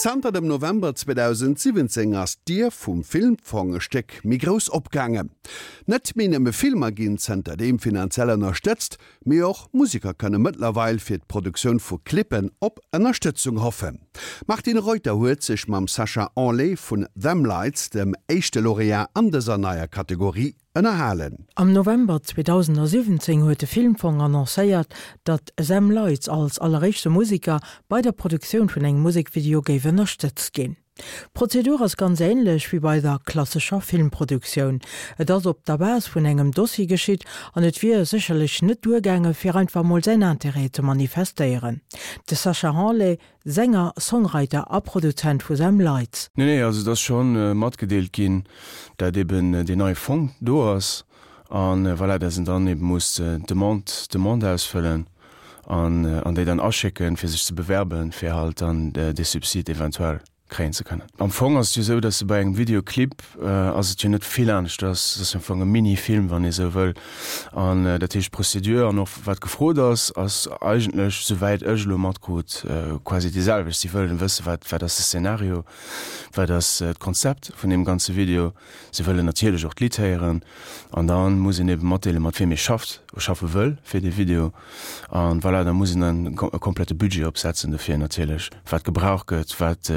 Zanter dem November 2017 ass d'Dier vum Filmfong e Stéck méi grouss opgaangen. Net méi nëmme Filmer ginn zënterdeem finanziell ënnerstëtzt, mee och Museker kënne mëttlerweil fir d'Produktioun vu Clippen op Ënnerstëtzung hoffen. D'Martine Reuter huet sech mam Sacha Henlé vun Them Lights, dem éischte Laureat an dëser neier Kategorie, ënnerhalen. Am November 2017 huet de Filmfong annoncéiert, datt Them Lights als alleréischte Museker bei der Produktioun vun engem Musekvideo géif ënnerstëtzt ginn. D'Prozedur ass ganz änlech wéi bei der klassescher Filmproduktioun. Et ass op der Base vun engem Dossier geschitt an et wier sécherlech net duergaange fir einfach mol säin Interêt ze manifestéieren. De Sacha Hanlet, Sänger, Songwriter a Produzent vu Them Lights. Nee, nee, also et ass scho matgedeelt ginn, dat eben deen neie Fong do ass a voilà, dat een dann eben muss d'Demande, d'Demande ausfëllen an an déi dann aschécken, fir sech ze bewerben, fir halt dann dee Subsid eventuell kréien ze kënnen. Am Fong ass et jo esou, dass de bei engem Videoclip ass et jo net vill aneschters, et ass jo am Fong e Mini-Film, wann ee sou wëll. An dat heescht, d'Procédure an och wat gefrot ass, ass eigentlech, souwäit ech elo matkrut, quasi déi selwecht. Si wëllen wëssen, wat wat ass de Szenario, wat ass d'Konzept vun deem ganze Video. Si wëllen natierlech och d'Lidd héieren an da muss een ebe matdeelen, mat wiem ee schafft, schaffe wëll fir dee Video. An voilà, da muss een dann e komplette Budget opsetzen dofir natierlech, wat gebraucht gëtt, wat,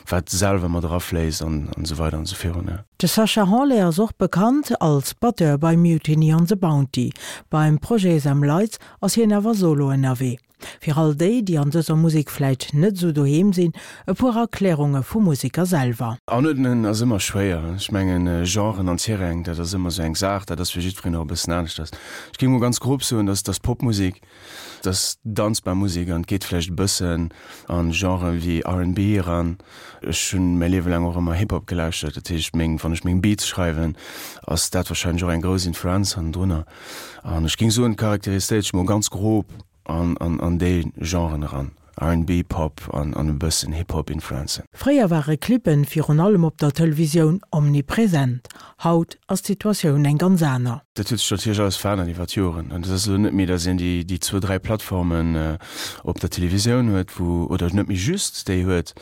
wat selwer mat erafléisst an esou weider an esou virun. De Sacha Hanlet ass och bekannt als Batteur bei Mutiny on the Bounty. Beim Projet Them Lights ass hien awer solo ënnerwee. Fir all déi, déi an dëser Musek vläit net esou doheem sinn, e puer Erklärunge vum Museker selwer. Anuerdnen ass ëmmer schwéier. Ech mengen, Genren an Terrainen, dat ass ëmmer esou eng Saach, dat ass fir jiddwereen och e bëssen aneschters. Ech géing mol ganz grob soen, dass dass Popmusek, dass danzbar Musek an et geet vläicht e bëssen a Genren wéi RnB eran. Ech hunn mäi Liewe laang och ëmmer Hip-Hop gelauschtert, dat heescht meng, wann ech meng Beats schreiwen, ass dat warscheinlech och eng grouss Influenz hannendrunner. An ech géing soen, charakteriséiert sech mol ganz grob an an déi Genren eran, RnB, Pop an an e bëssen Hip-Hop Influenzen. Fréier ware Clippen virun allem op der Televisioun omnipresent. Haut ass d'Situatioun eng ganz aner. Dat huet sech natierlech alles verännert iwwer d'Joren. An et ass elo net méi, datt een déi déi zwou, dräi Plattformen op der Televisioun huet, wou, oder net méi just déi huet,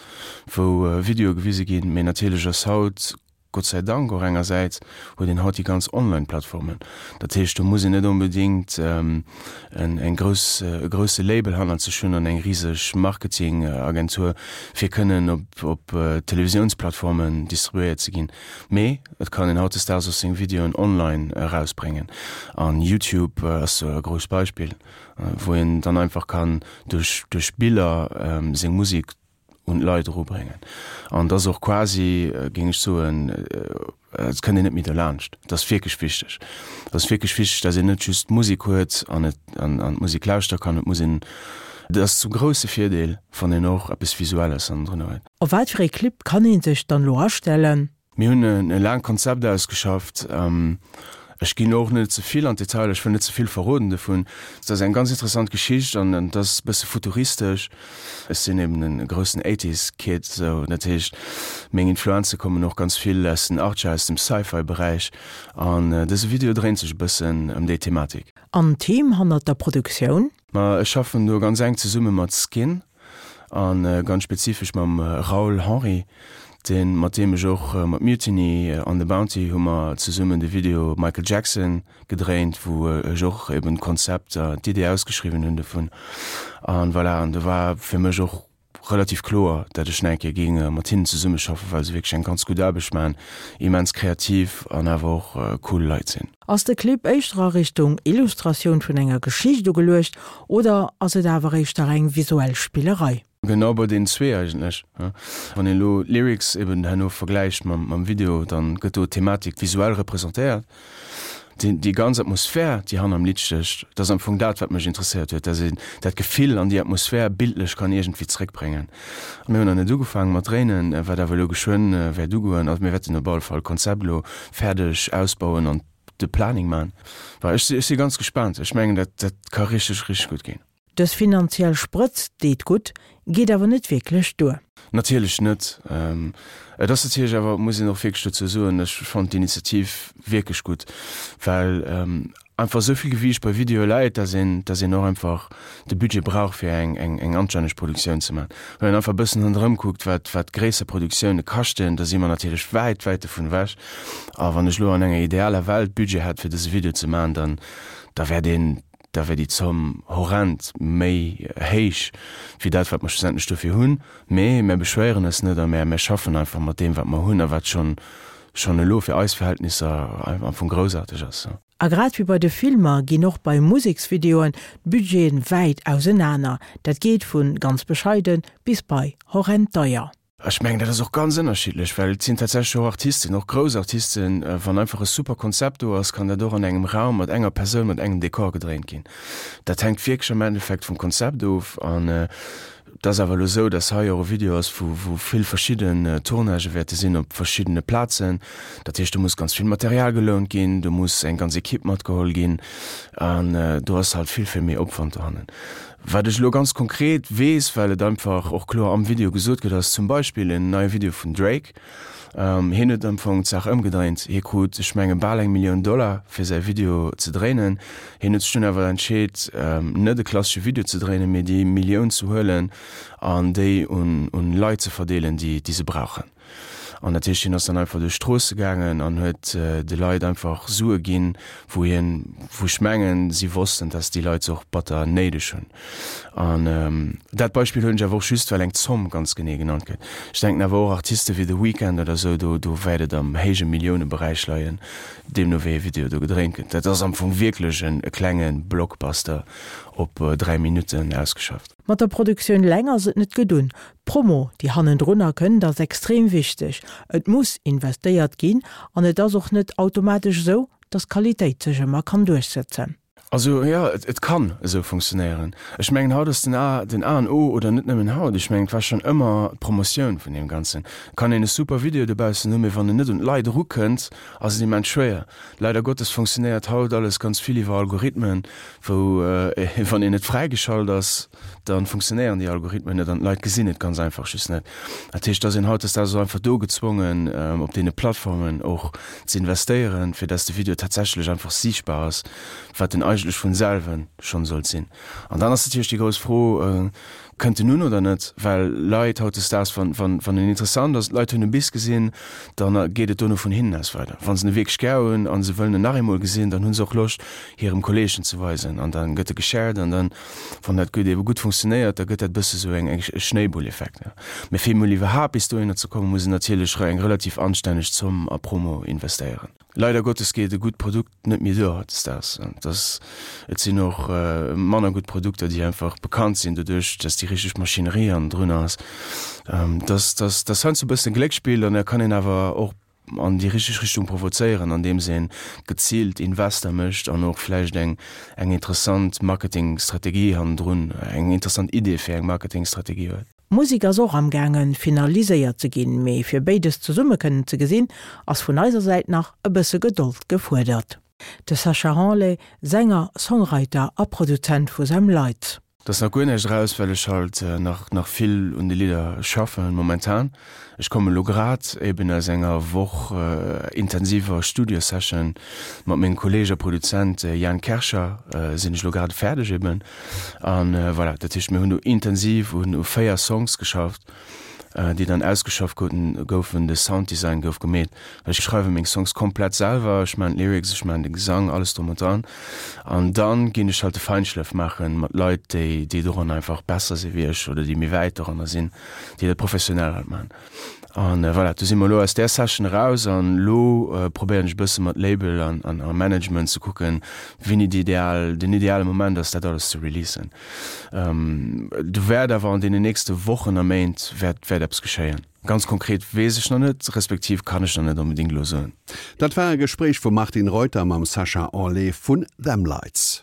wou Videoe gewise ginn, mee natierlech ass haut Gott sei Dank och engersäits huet een haut déi ganz Online-Plattformen. Dat heescht, do muss een net onbedéngt eng grouss, e grousse Label hannert sech hunn an eng riseg Marketingagentur, fir kënnen op, op Televisiounsplattformen distribuéiert ze ginn. Mee et kann een hautdesdaags och seng Videoen online erausbréngen. An YouTube ass do e grousst Beispill, wou een dann einfach kann duerch, duerch Biller seng Musek un d'Leit erubréngen. An et ass och quasi, géing ech soen, et kënnt een net méi derlaanscht. Et ass wierklech wichteg. Et ass wierklech wichteg, datt een net just d'Musek huet an et an d'Musek lauschtere kann. Et muss een, et ass zum grousse Virdeel, wann een och eppes Visuelles hannendrun huet. Op wat fir ee Clip kann ee sech dann elo astellen? Mir hunn e laangt Konzept ausgeschafft. Ech ginn och net ze vill an d'Detailer, ech wëll net ze vill verroden dovun. Et ass eng ganz interessant Geschicht an et ass e bësse futuristesch. Ech sinn eben e groussen Eighties Kid, sou dat heescht meng Influenze kommen och ganz vill aus den Achtger, aus dem Sci-Fi Beräich an dëse Video dréint sech e bëssen ëm déi Thematik. An d'Team hannert der Produktioun? Ma ech schaffen do ganz enk zesumme mat Skin a ganz spezifesch mam Raoul Henry, deen, mat deem ech och mat Mutiny on the Bounty hu mer zesummen de Video Michael Jackson gedréint, wou ech och eben d'Konzept a d'Idee ausgeschriwwen hunn dovun. An voilà, an do war fir mech och relativ kloer, dat ech nach eng Kéier géing mat hinnen zesummeschaffen, well se wierklech eng ganz gutt Aarbecht maachen, immens kreativ an awer och cool Leit sinn. Ass de Clip éischter a Richtung Illustratioun vun enger Geschicht ugeluecht oder ass et awer éischter eng visuell Spillerei? Genau bei deenen zwee eigentlech. Wann een elo d'Lyrics eben herno vergläicht mam Video, dann gëtt do d'Thematik visuell representéiert. Déi ganz Atmosphär, déi hanner dem Lidd stécht, dat ass am Fong dat, wat mech interesséiert huet, dass een dat Gefill an déi Atmosphär bildlech kann iergendwéi zréckbréngen. Mir hunn nach net ugefaange mat dréinen, wat awer elo geschwënn wäert ugoen. Also mir wäerten op alle Fall d'Konzept elo fäerdeg ausbauen an de Planning maachen. Ech si ganz gespaant. Ech mengen, dat dat ka richteg, richteg gutt ginn. Dës finanziell Sprëtz deet gutt, geet awer net wierklech duer. Natierlech net. Et ass natierlech awer, muss een och wierklech dozou soen, ech fannen d'Initiativ wierklech gutt, well. einfach esou vill Gewiicht bei Videoe läit, dass een, dass een och einfach de Budget brauch fir eng, eng, eng anstänneg Produktioun ze maachen. Wann een einfach e bëssen ronderëm kuckt, wat, wat gréisser Produktioune kaschten, da si mer natierlech wäit, wäit dovun ewech. A wann ech elo an enger idealer Welt Budget hätt fir dëse Video ze maachen, dann, da wär deen, da wär déi Zomm horrend méi héich wéi dat, wat mer schlussendlech dofir hunn. Mee mär beschwéieren eis net a mär, mär schaffen einfach mat deem, wat mer hunn a wat schonn, schonn elo fir eis Verhältnisser am Fong groussaarteg ass. A grad wéi bei de Filmer ginn och bei Museksvideoen d'Budgeten wäit ausenaner. Dat geet vu ganz bescheiden bis bei horrend deier. Ech mengen, dat ass och ganz ënnerschiddlech, well et sinn tatsächlech och Artisten, och grouss Artisten, wann einfach e super Konzept do ass, kann dat och an engem Raum mat enger Persoun, mat engem Dekor gedréint ginn. Dat hänkt wierklech am Endeffekt vum Konzept of. An Et ass awer elo esou, dass hei och e Video ass, wou wou vill verschidden Tournagë wäerte sinn op verschiddene Plazen. Dat heescht, do muss ganz vill Material gelount ginn, do muss eng ganz Ekipp matgeholl ginn an do ass halt vill, vill méi Opwand dohannen. Wat ech elo ganz konkret weess, well et einfach och kloer am Video gesot gëtt, ass zum Beispill en neie Video vun Drake. Hien huet am Fong d'Saach ëmgedréint. Hie krut, ech menge bal eng Millioun Dollar fir säi Video ze dréinen. Hien huet sech dunn awer entscheet, net e klassesche Video ze dréinen, mee déi Millioun ze huelen an déi un Leit ze verdeelen, déi se brauchen. An dat heescht, hien ass dann einfach duerch d'Stroosse gaangen an huet de Leit einfach Sue ginn, wou hien, wou ech mengen, si wossten, dass déi Leit se och batter néideg hunn. An dat Beispill huelen ech awer och just, well eng Zomm ganz genee genannt gëtt. Ech denken awer och Artiste wéi The Weeknd oder esou, do do wäert et am héije Milliouneberäich leien, deemno wéi e Video do gedréint gëtt. Dat ass am Fong wierklech en e klenge Blockbuster op 3 Minutten ausgeschafft. Mat der Produktioun eleng ass et net gedun. D'Promo, déi hannendrunner kënnt, ass extrem wichteg. Et muss investéiert ginn an et ass och net automatesch esou, dass d'Qualitéit sech ëmmer kann duerchsëtzen. Also jo, et kann esou funktionéieren. Ech mengen, haut ass den A den A an O, oder net nëmmen haut, ech mengen, et war schonn ëmmer d'Promotioun vun deem Ganzen. Et kann een e super Video dobaussen hunn, mee wann en net un d'Leit erukënnt, ass et immens schwéier. Leider Gottes funktionéiert haut alles ganz vill iwwer Algorithmen, wou, wann een net fräigeschalt ass, da funktionéieren déi Algorithmen net an d'Leit gesinn et ganz einfach just net. Dat heescht, dass een hautdesdaags och einfach do gezwongen, op deene Plattformen och ze investéieren, fir dass de Video tatsächlech einfach siichtbar ass, wat en eigentlech vun selwen schonn sollt sinn. An dann ass natierlech déi grouss Fro, Kënnt en un oder net? Well Leit hautdesdaags, wann, wann, wann en interessant ass, d'Leit hunn e bis gesinn, dann geet et dono vun hinnen aus weider. Wa se e wierklech gär hunn a se wëllen en nach eemol gesinn, dann hu se och Loscht, hirem Kolleeg en ze weisen an da gëtt e geshared an dann, Wann dat gutt ebe gutt funktionéiert, da gëtt dat e bësse sou eng e Schnéibulleffekt. Mee fir emol iwwerhaapt bis dohinner ze kommen, muss een natierlech eng relativ anstänneg Zomm a Promo investéieren. Leider Gottes geet e gutt Produkt net méi duer hautdesdaags. Et ass, et sinn och manner gutt Produkter, déi einfach bekannt sinn doduerch, dass déi richteg Maschinerie hannendrun ass. Dass, dass, dass heiansdo e bëssen Gléckspill an da kann een awer och an déi richteg Richtung provozéieren, andeems ee geziilt Invester mécht an och vläicht eng eng interessant Marketingstrategie hannendrun, eng interessant Idee fir eng Marketingstrategie huet. D'Musek ass och amgaangen finaliséiert ze ginn, mee fir béides zesumme kënnen ze gesinn, ass vun eiser Säit nach e bësse Gedold gefuerdert. De Sacha Hanlet, Sänger, Songwriter a Produzent vu Them Lights. Et ass nach guer näischt eraus, well ech halt nach nach vill un de Lidder schaffen momentan. Ech kommen elo grad eben aus enger Woch intensiver Studio-Session mat mengem Kolleg a Produzent Jan Kercher sinn ech elo grad fäerdeg eben. An voilà, dat heescht mir hunn do intensiv un u 4 Songs geschafft. déi dann ausgeschafft goufen, de Sounddesign gouf gemeet. Ech schreiwe meng Songs komplett selwer, ech maachen d'Lyrics, ech maachen de Gesang, alles drum und dran. An dann ginn ech halt de Feinschlëff maachen mat Leit, déi déi doran einfach besser si wéi ech oder déi méi wäit doranner sinn, déi dat professionell halt maachen. An voilà, do si mer elo aus där Session eraus an elo probéieren ech e bësse mat Label an a Management ze kucken, wéini déi ideal, den ideale Moment ass, dat alles ze releasen. Do wäert awer an deenen nächste Wochen a Méint wäert wäert eppes geschéien. Ganz konkret weess ech nach net, respektiv kann ech nach net onbedéngt elo soen. Dat war e Gespréich vum Martine Reuter mam Sacha Anlet vun Them Lights.